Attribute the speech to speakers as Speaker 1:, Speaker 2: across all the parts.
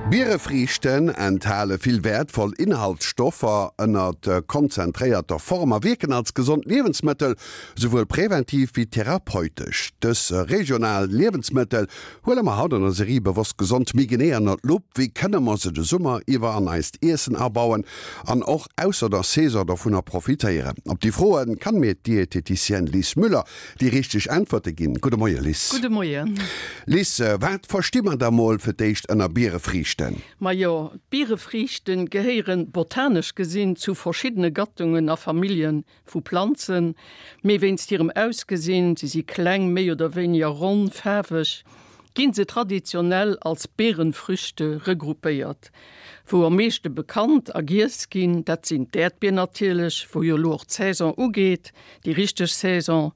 Speaker 1: Bierefriichten enthale vill wäertvoll Inhaltsstoffer ënnert konzentréierter Form a wierken als gesond Liewensmëttel, souwuel präventiv wéi therapeutesch. Dës regional Liewensmëttel huele mer haut an der Serie Bewosst Gesond méi genee ënnert d'Lupp. Wéi kënne mer se de Summer iwwer an eist Iessen abauen an och ausser der Saison dovunner profitéieren? Op déi Froe kann mir d'Dieteticienne Lis Müller déi richteg Äntwerte ginn. Gudde Moie Lis.
Speaker 2: Gudde Moien.
Speaker 1: Lis, wat versti mer da mol fir d'éischt ënner Bierefriichten?
Speaker 2: Majo, d'Bierefriichten gehéieren botanesch gesinn zu verschiddene Gattungen a Familljen vu Planzen, mee wéinst hirem Ausgesinn, se si kleng, méi oder wéiniger ronn, faarweg, ginn se traditionell als Beerenfrüchte regroupéiert. Wou am meeschte bekannt a giess ginn, dat sinn d'Äerdbier natierlech, wou jo elo och d'Saison ugeet, déi richteg Saison,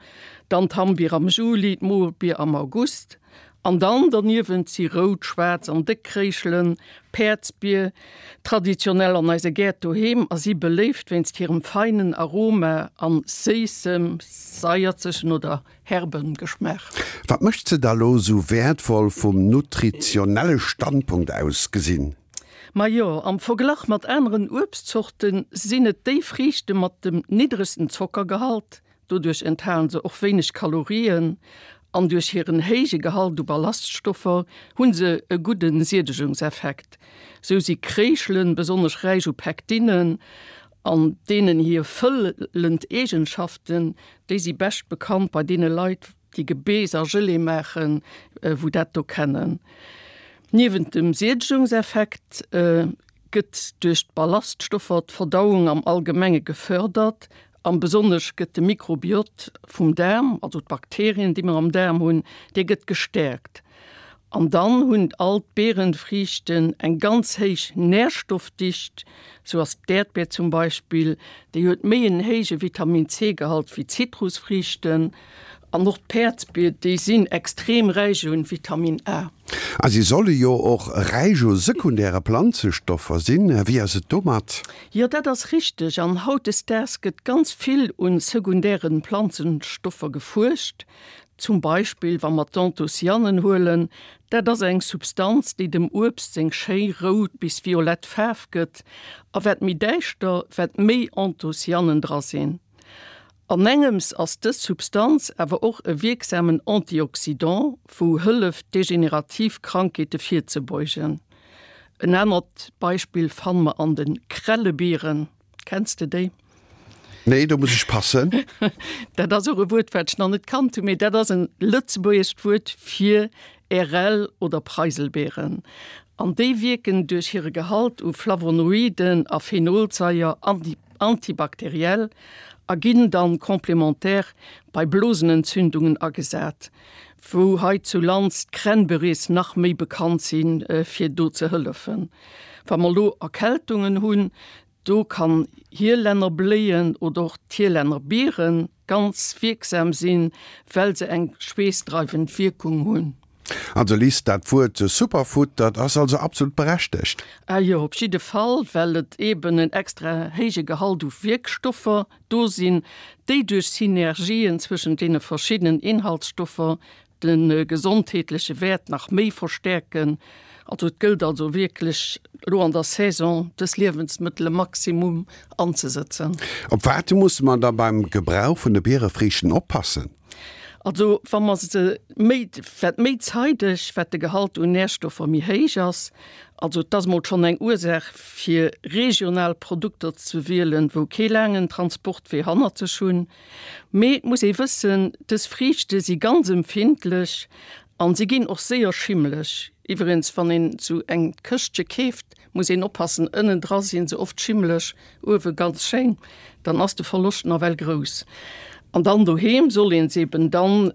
Speaker 2: dann d'Hammbier am Juli, d'Mobier am August an dann derniewent si rout, schwaarz an déck Kréischelen, Päerdsbier, traditionell an eise Gäert doheem a si beléift wéinst hirem feinen Aroma an séissem, saierzegen oder herben Geschmaach.
Speaker 1: Wat mécht se da lo sou wäertvoll vum nutritionelle Standpunkt aus gesinn?
Speaker 2: Majo, am Verglach mat aneren Uebstzorte sinn et déi Friichte mat dem niddregsten Zockergehalt. Doduerch enthalen se och wéineg Kalorien an duerch hiren héije Gehalt u Ballaststoffer hu se e gudde Siedegungseffekt. Sou si Kréischelen besonnesch räich u Pektinen an deenen hir fëllend Eegenschaften, déi si bescht bekannt bei deene Leit, déi Gebeess a Gelee maachen, wou dat do kennen. Niewent dem Siedegungseffekt gëtt duerch d'Ballaststoffer d'Verdauung am Allgemenge gefërdert an besonnesch gëtt de Mikrobiot vum Daarm, also d'Bakterien, déi mer am Daarm hunn, dee gëtt gestäerkt. An dann hunn all d'Beerenfriichten eng ganz héich Nährstoffdicht. Sou ass d'Äerdbeer zum Beispill, déi huet méi en héije Vitamin C-Gehalt wéi d'Zitrusfriichten. An och d'Päerdsbier, déi sinn extrem räich un Vitamin A.
Speaker 1: A si solle jo och räich u sekundäre Planzestoffer sinn. Wéi ass et domat?
Speaker 2: Jo, dat ass richteg. An hautdesdaags gëtt ganz vill un sekundären Planzenstoffer gefuerscht. Zum Beispill wa mer d'Anthocyanen huelen, dat ass eng Substanz, déi dem Uebst seng schéi rout bis violett Faarf gëtt. A wat méi däischter, wat méi Anthocyanen dra sinn. An engems ass dës Substanz awer och e wierksamen Antioxydant, wou hëlleft degenerativ Krankheete virzebeugen. En anert Beispill fanne mer an de Krellebieren. Kenns de déi?
Speaker 1: Nee, do muss ech passen.
Speaker 2: Dat ass och e Wuert, wat ech nach net kannt hunn, mee dat ass e lëtzebuergescht Wuert fir Ärel oder Preiselbeeren. An déi wierken duerch hire Gehalt u Flavonoiden a Phenolsaier antibakteriell a ginn dann complémentaire bei Blosenentzündungen agesat, wou hei zu Lands d'Cranberries nach méi bekannt sinn fir do ze hëllefen. Wa mer lo Erkältungen hunn, do kann Hielännerbléien oder och d'Hielännerbieren ganz wierksam sinn, well se eng schweessdreiwend Wierkung hunn.
Speaker 1: Also Liz, dat Wuert Superfood, dat ass also absolut berechtegt?
Speaker 2: Ah jo, op jidde Fall, well et eben en extra héije Gehalt u Wierkstoffer do sinn, déi duerch Synergien zwëschent deene verschiddenen Inhaltsstoffer de gesondheetleche Wäert nach méi verstäerken. Also et gëllt also wierklech elo an der Saison dës Liewensmëttele maximum anzesëtzen.
Speaker 1: Op wat musse mer da beim Gebrauch vun de Bierefriichten oppassen?
Speaker 2: Also wa mer se méi, wat méi zeideg, wat de Gehalt un Närstoffer méi héich ass. Also et ass mol schonn eng Ursaach fir regional Produkter ze wielen, wou kee laangen Transportwee hannert sech hunn. Mee et muss ee wëssen, dës Friichte si ganz empfindlech an si ginn och séier schimmeleg. Iwwregens wann een sou eng Këschtche keeft, Muss een oppassen, ënnen dra sinn se oft schimmeleg, uewe ganz schéin, dann ass de Verloscht nawell grouss. An dann doheem soll een se eben dann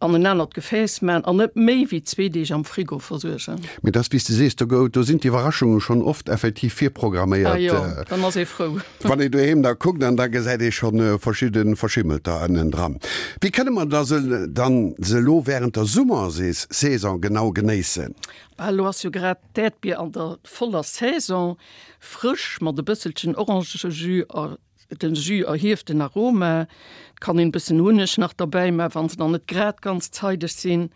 Speaker 2: an en anert Gefääss man an net méi wéi zwee Deeg am Frigo versuergen.
Speaker 1: Mee dass, wéi s de sees, do gouf, do sinn d'Iwwerraschunge schonn oft effektiv virprogramméiert.
Speaker 2: Ah jo, dann ass ee frou.
Speaker 1: Wann ee doheem da kuckt an da gesäit ee schonn verschidde Verschimmelter ënnen dran. Wéi kënne mer da se dann se elo wärend der Summersaison genau genéissen?
Speaker 2: Bah, elo ass jo grad D'Äerdbier an der voller Saison, frësch mat e bësselchen Orangejus a den Jus erhieft den Aroma. Et kann een bëssen Hunneg nach derbäi man, wann se nach net grad ganz zeideg sinn.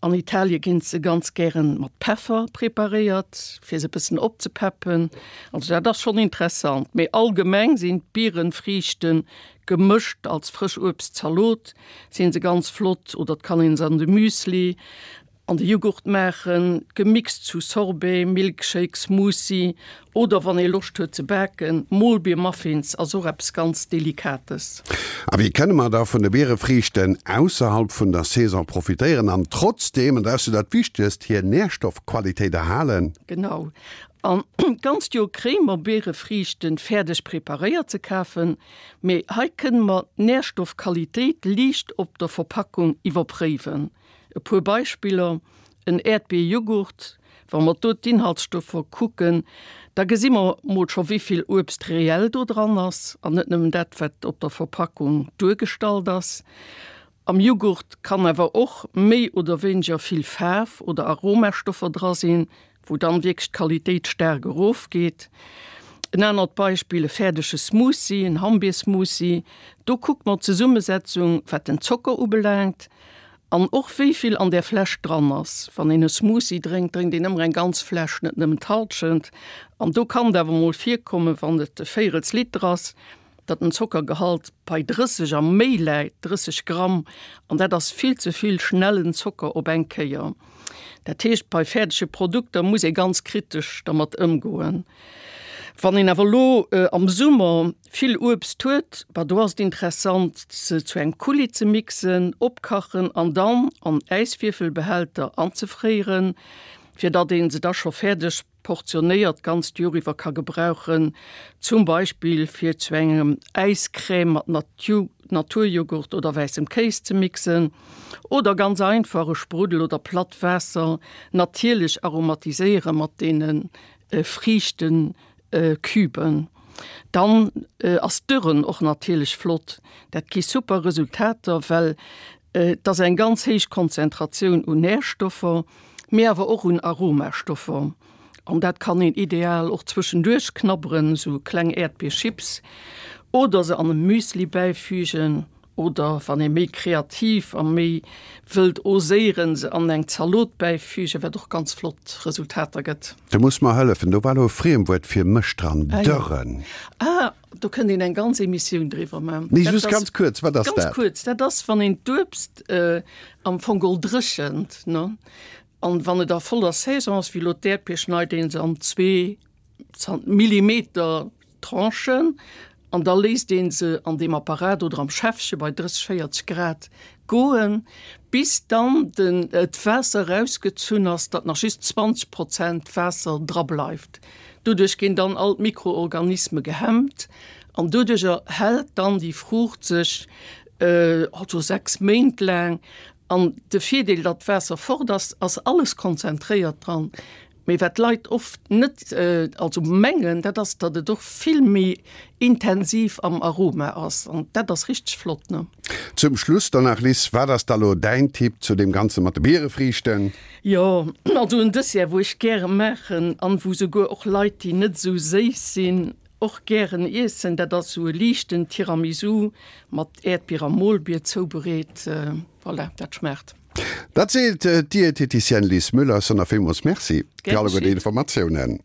Speaker 2: An Italie ginn se ganz gären mat Peffer preparéiert, fir se e bëssen opzepeppen. Also dat ass schonn interessant. Mee allgemeng sinn d'Bierenfriichten gemëscht als Frëschuebstzalot sinn se ganz flott oder et kann een se an de Müsli An de Jughurt maachen, gemixt zu Sorbet, Milkshake, Smoothie oder wann ee Loscht huet ze baken, Molbiermuffins ass och eppes ganz Delikates.
Speaker 1: A wéi kënne mer da vun de Bierefriichten ausserhalb vun der Saison profitéieren an trotzdeem, an dat ass jo dat Wichtegst, hir Nährstoffqualitéit erhalen?
Speaker 2: Genau, an d'ganzt Joer kréie mer Bierefriichten fäerdeg preparéiert ze kafen, mee hei kënne mer d'Nährstoffqualitéit liicht op der Verpackung iwwerpréiwen. E puer Beispiller, En Äerdbier-Jughurt, wa mer do d'Inhaltsstoffer kucken, da gesi mer mol scho wéivill Uebst reell do dran ass an net nëmmen dat wat op der Verpackung duergestallt ass. Am Jughurt kann awer och méi oder wéineger vill Faarf oder Aromastoffer dra sinn, wou dann wierklech d'Qualitéit staark erof geet. En anert Beispill, e fäerdege Smoothie, en Hammbiersmoothie, do kuckt mer d'Zesummesetzung wat den Zocker ubelaangt an och wéi vill an där Fläsch dran ass. Wann een e Smoothie drénkt, drénkt een ëmmer eng ganz Fläsch, net nëmmen d'Hallschent. An do kann et awer mol virkommen, wann et e véirels Liter ass, datt den Zockergehalt bei 30 a méi läit, 30 Gramm, an dat ass vill ze vill schnellen Zocker op eng Kéier. Dat heescht, bei fäerdege Produkter muss ee ganz kritesch dermat ëmgoen. Wann een awer elo am Summer vill Uebst huet, bah do ass et interessant, se zu engem Coulis ze mixen, opkachen an dann an Äiswierfelbehälter anzefréieren, fir datt ee se da scho fäerdeg portionéiert d'ganzt Joer iwwer ka gebrauchen, zum Beispill fir zu engem Äiscrème mat Naturjoghurt oder wäissem Kéis ze mixen oder ganz einfach e Spruddel oder platt Waasser natierlech aromatiséiere mat deene Friichtenküben. Dann ass d'Dürren och natierlech flott, dat gi super Resultater, well Et ass eng ganz héich Konzentratioun un Närstoffer, mee awer och un Aromastoffer. An dat kann een ideal och zwëschenduerch knabberen, sou kleng Äerdbierchips, oder se an e Müsli bäifügen, oder wann ee méi kreativ a méi wëllt oséieren, se an eng Zalot bäifügen, wat och ganz flott Resultater gëtt.
Speaker 1: Du muss mer hëllefen, do war elo e Friemwuert fir mech dran, dörren.
Speaker 2: Ah. Do kënnt een eng ganz Emissioun driwwer man.
Speaker 1: Nee, just ganz kuerz, wat ass dat?
Speaker 2: Ganz kuerz, dat ass, wann een d'Uebst am Fong geholl dréchent, ne? An wann et a voller Saison ass, wéi elo d'Äerdbier, schneit een se an zwee Millimeter Tranchen an da léisst een se an deem Apparat oder am Schäffche bei 30, 40 Grad goen, bis dann den d'Waasser erausgezunn ass, datt nach just 20 Prozent Waasser dra bleift. Doduerch ginn dann all d'Mikroorganisme gehemmt an doduercher hält dann déi Fruucht sech also 6 Méint laang. An de Virdeel, datt d'Waasser fort ass, ass alles konzentréiert dran. Mee wat d'Leit oft net, also mengen, dat ass, datt et och vill méi intensiv am Aroma ass. An dat ass richteg flott, ne?
Speaker 1: Zum Schluss dann nach, Liz, wat ass da lo däin Tipp zu deem Ganze mat de Bierefriichten?
Speaker 2: Jo, also en Dessert, wou ech gäre maachen an wou souguer och Leit, déi net esou séiss sinn, och gären iessen, dat ass esou e liichten Tiramisu mat Äerdbier a Molbier zoubereet. Voilà, dat schmaacht.
Speaker 1: Dat seet d'Dieteticienne Liz Müller. Sonner villmools Merci fir alleguer déi Informatiounen.